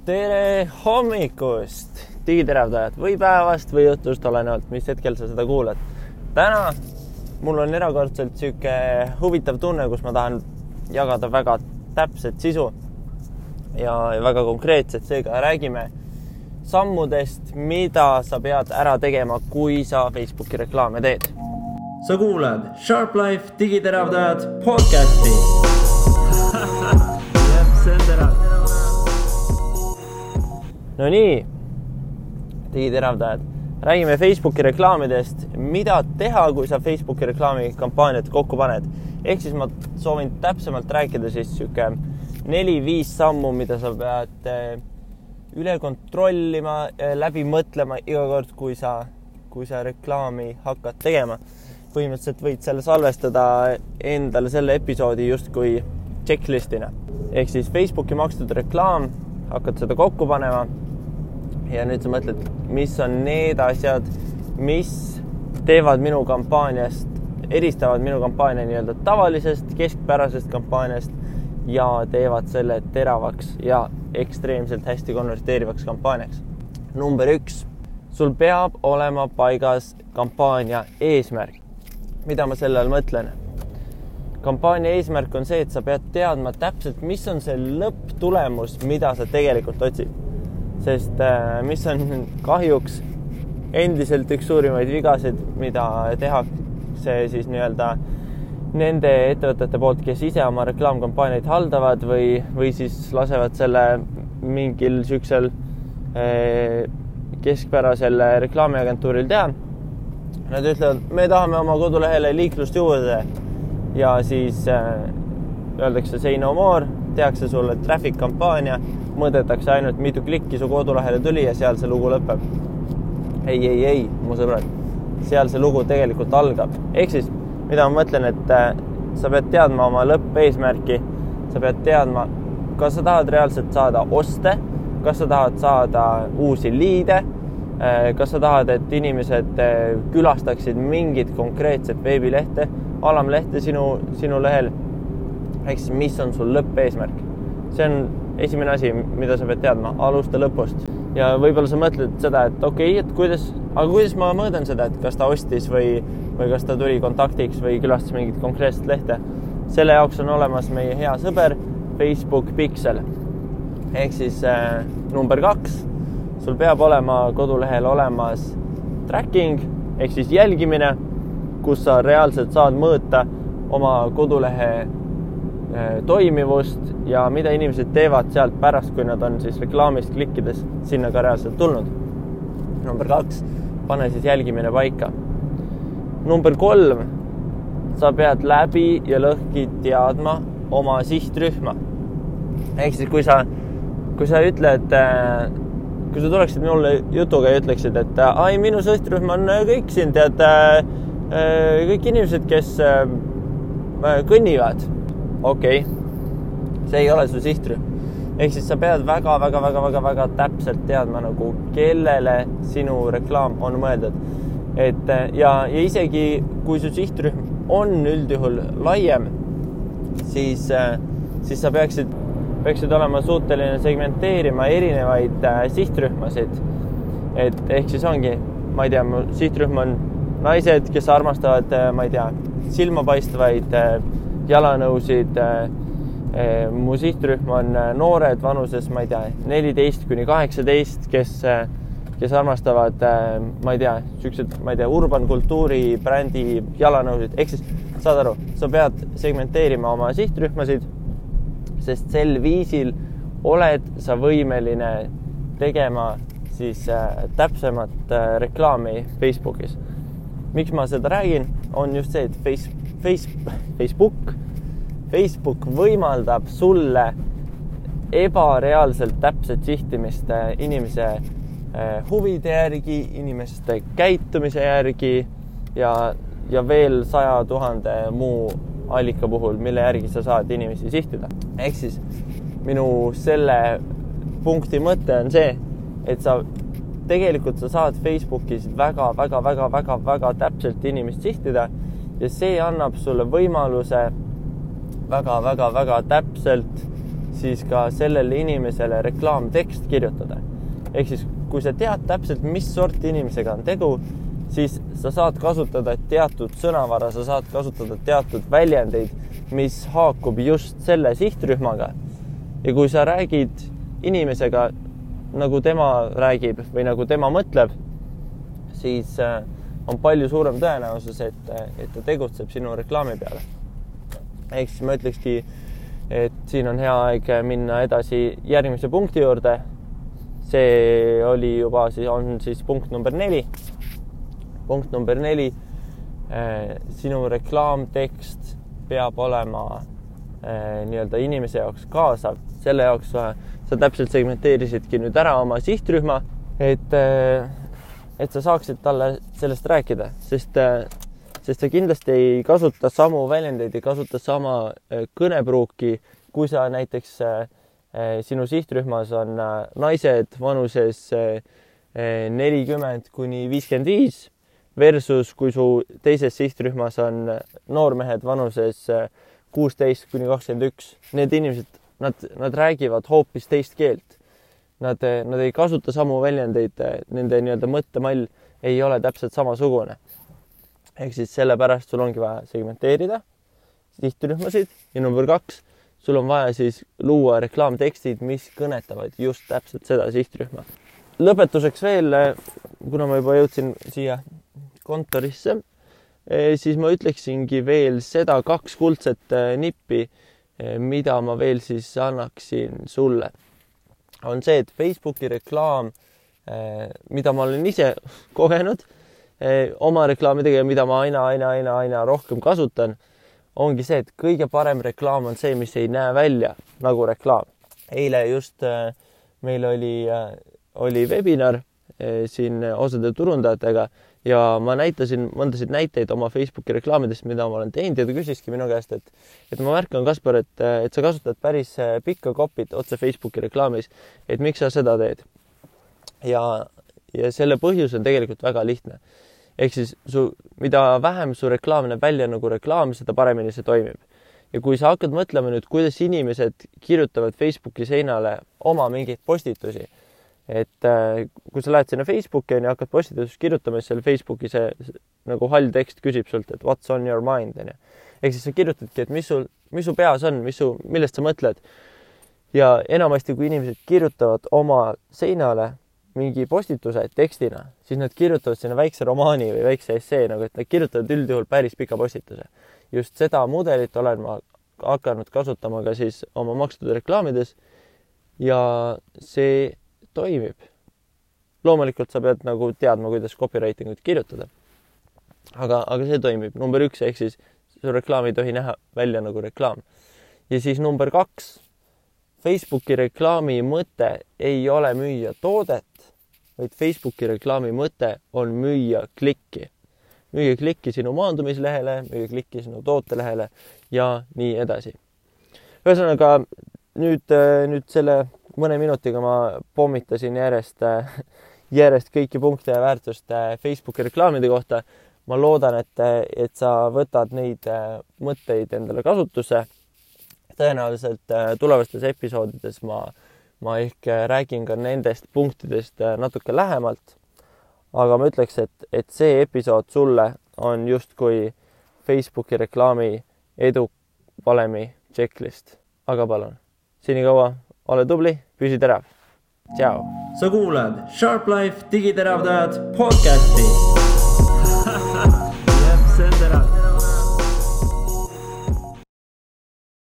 Tere hommikust, digiteravdajad või päevast või õhtust, olenevalt, mis hetkel sa seda kuulad. Täna mul on erakordselt siuke huvitav tunne, kus ma tahan jagada väga täpset sisu ja väga konkreetset. Seega räägime sammudest, mida sa pead ära tegema, kui sa Facebooki reklaame teed. Sa kuulad Sharp Life digiteravdajad podcasti. See on terav. No nii, digiteravdajad. Räägime Facebooki reklaamidest, mida teha, kui sa Facebooki reklaami kampaaniat kokku paned. Ehk siis ma soovin täpsemalt rääkida siis 4-5 sammu, mida sa pead üle kontrollima, läbi mõtlema iga kord, kui sa reklaami hakkad tegema. Põhimõtteliselt võid selle salvestada endale selle episoodi justkui checklistina. Ehk siis Facebooki makstud reklaam, hakkad seda kokku panema ja nüüd sa mõtled, mis on need asjad, mis teevad minu kampaaniast, eristavad minu kampaania nii-öelda tavalisest, keskpärasest kampaaniast ja teevad selle teravaks ja ekstreemselt hästi konverteerivaks kampaaniaks. Number 1. Sul peab olema paigas kampaania eesmärk. Mida ma selle all mõtlen? Kampaania eesmärk on see, et sa pead teadma täpselt, mis on see lõpptulemus, mida sa tegelikult otsid. Sest mis on kahjuks endiselt üks suurimaid vigasid, mida tehakse siis nii-öelda nende ettevõtete poolt, kes ise oma reklaamkampaaniaid haldavad või siis lasevad selle mingil süksel keskpärasel reklaamiagentuuril teha. Nad ütlevad, me tahame oma kodulehele liiklust juurde ja siis öeldakse say no more, tehakse sulle traffic kampaania, mõõdetakse ainult mitu klikki su kodulehele tuli ja seal see lugu lõpeb. Ei, mu sõbrad, seal see lugu tegelikult algab. Ehk siis, mida ma mõtlen, et sa pead teadma oma lõppeesmärki, sa pead teadma, kas sa tahad reaalselt saada oste, kas sa tahad saada uusi liide, kas sa tahad, et inimesed külastaksid mingit konkreetset veebilehte, alamlehte sinu lehel, ehk siis mis on sul lõppeesmärk. See on esimene asi, mida sa pead teadma, alusta lõpust. Ja võib-olla sa mõtled seda, et okei, kuidas ma mõõdan seda, et kas ta ostis või kas ta tuli kontaktiks või külastas mingit konkreetset lehte. Selle jaoks on olemas meie hea sõber Facebook Pixel. Ehk siis number 2, sul peab olema kodulehel olemas tracking, ehk siis jälgimine, kus sa reaalselt saad mõõta oma kodulehe toimivust ja mida inimesed teevad sealt pärast, kui nad on siis reklaamist klikkides sinna ka reaalselt tulnud. Number 2, pane siis jälgimine paika. Number 3, sa pead läbi ja lõhki teadma oma sihtrühma. Ehk siis kui sa ütled, kui sa tuleksid mulle jutuga ja ütleksid, et minu sihtrühm on kõik siin, tead, kõik inimesed, kes kõnnivad. Okei, see ei ole su sihtrühm. Ehk siis sa pead väga täpselt teadma, nagu kellele sinu reklaam on mõeldud. Ja isegi kui su sihtrühm on üldjuhul laiem, siis sa peaksid olema suuteline segmenteerima erinevaid sihtrühmasid. Ehk siis ongi, ma ei tea, mu sihtrühm on naised, kes armastavad, ma ei tea, silmapaistvaid jalanõusid. Mu sihtrühm on noored vanuses, ma ei tea, 14-18, kes armastavad, ma ei tea, urban kultuuri brändi jalanõusid. Ehk siis, saad aru, sa pead segmenteerima oma sihtrühmasid, sest sel viisil oled sa võimeline tegema siis täpsemat reklaami Facebookis. Miks ma seda räägin, on just see, et Facebook võimaldab sulle ebareaalselt täpset sihtimist inimese huvide järgi, inimeste käitumise järgi ja veel 100 000 muu allika puhul, mille järgi sa saad inimesi sihtida. Ehk siis minu selle punkti mõte on see, et sa saad Facebookis väga täpselt inimest sihtida ja see annab sulle võimaluse väga täpselt siis ka sellele inimesele reklaamtekst kirjutada. Ehk siis, kui sa tead täpselt, mis sorti inimesega on tegu, siis sa saad kasutada teatud sõnavara, sa saad kasutada teatud väljendeid, mis haakub just selle sihtrühmaga. Ja kui sa räägid inimesega, nagu tema räägib või nagu tema mõtleb, siis on palju suurem tõenäosus, et ta tegutseb sinu reklaami peale. Ehk siis ma ütlekski, et siin on hea aeg minna edasi järgmise punkti juurde. See oli juba, on punkt number 4. Punkt number 4. Sinu reklaamtekst peab olema nii-öelda inimese jaoks kaasav. Selle jaoks sa täpselt segmenteerisidki nüüd ära oma sihtrühma, et sa saaksid talle sellest rääkida, sest sa kindlasti ei kasuta samu väljendeid, ei kasuta sama kõnepruuki, kui sa näiteks sinu sihtrühmas on naised vanuses 40 kuni 55 versus kui su teises sihtrühmas on noormehed vanuses 16 kuni 21. Need inimesed, nad räägivad hoopis teist keelt. Nad ei kasuta samu väljendeid, nende nii-öelda mõttemall ei ole täpselt samasugune. Ehk siis sellepärast sul ongi vaja segmenteerida sihtrühmasid ja number 2, sul on vaja siis luua reklaamtekstid, mis kõnetavad just täpselt seda sihtrühma. Lõpetuseks veel, kuna ma juba jõudsin siia kontorisse, siis ma ütleksingi veel seda 2 kuldset nippi, mida ma veel siis annaksin sulle. On see, et Facebooki reklaam, mida ma olen ise kogenud, oma reklaamidega, mida ma aina rohkem kasutan, ongi see, et kõige parem reklaam on see, mis ei näe välja nagu reklaam. Eile just meil oli webinar siin osade turundajatega ja ma näitasin mõndasid näiteid oma Facebooki reklaamidest, mida ma olen teinud ja ta küsiski minu käest, et ma märkan, Kaspar, et sa kasutad päris pikka kopit otse Facebooki reklaamis, et miks sa seda teed. Ja selle põhjus on tegelikult väga lihtne. Ehk siis mida vähem su reklaam näeb välja nagu reklaam, seda paremini see toimib. Ja kui sa hakkad mõtlema nüüd, kuidas inimesed kirjutavad Facebooki seinale oma mingeid postitusi, et kui sa lähed sinna Facebooki ja hakkad postitusest kirjutama, siis seal Facebooki see nagu hall tekst küsib sult, et what's on your mind. Ehk siis sa kirjutadki, et mis su peas on, millest sa mõtled. Ja enamasti, kui inimesed kirjutavad oma seinale mingi postituse tekstina, siis nad kirjutavad sinna väikse romaani või väikse essee, nagu et nad kirjutavad üldjuhul päris pika postituse. Just seda mudelit olen ma hakanud kasutama ka siis oma makstud reklaamides ja see toimib. Loomulikult sa pead nagu teadma, kuidas copywritingut kirjutada. Aga see toimib. Number 1, ehk siis su reklaam ei tohi näha välja nagu reklaam. Ja siis number 2, Facebooki reklaami mõte ei ole müüa toodet, vaid Facebooki reklaami mõte on müüa klikki. Müüa klikki sinu maandumislehele, müüa klikki sinu tootelehele ja nii edasi. Ühesõnaga, nüüd selle mõne minutiga ma pommitasin järjest kõiki punkte ja väärtust Facebooki reklaamide kohta. Ma loodan, et sa võtad neid mõtteid endale kasutusse. Tõenäoliselt tulevastes episoodides ma ehk räägin ka nendest punktidest natuke lähemalt, aga ma ütleks, et see episood sulle on justkui Facebooki reklaami edu valemi checklist. Aga palun, senikaua ole tubli, püsi terav. Tšau! Sa kuulad Sharp Life digiteravdajad podcasti.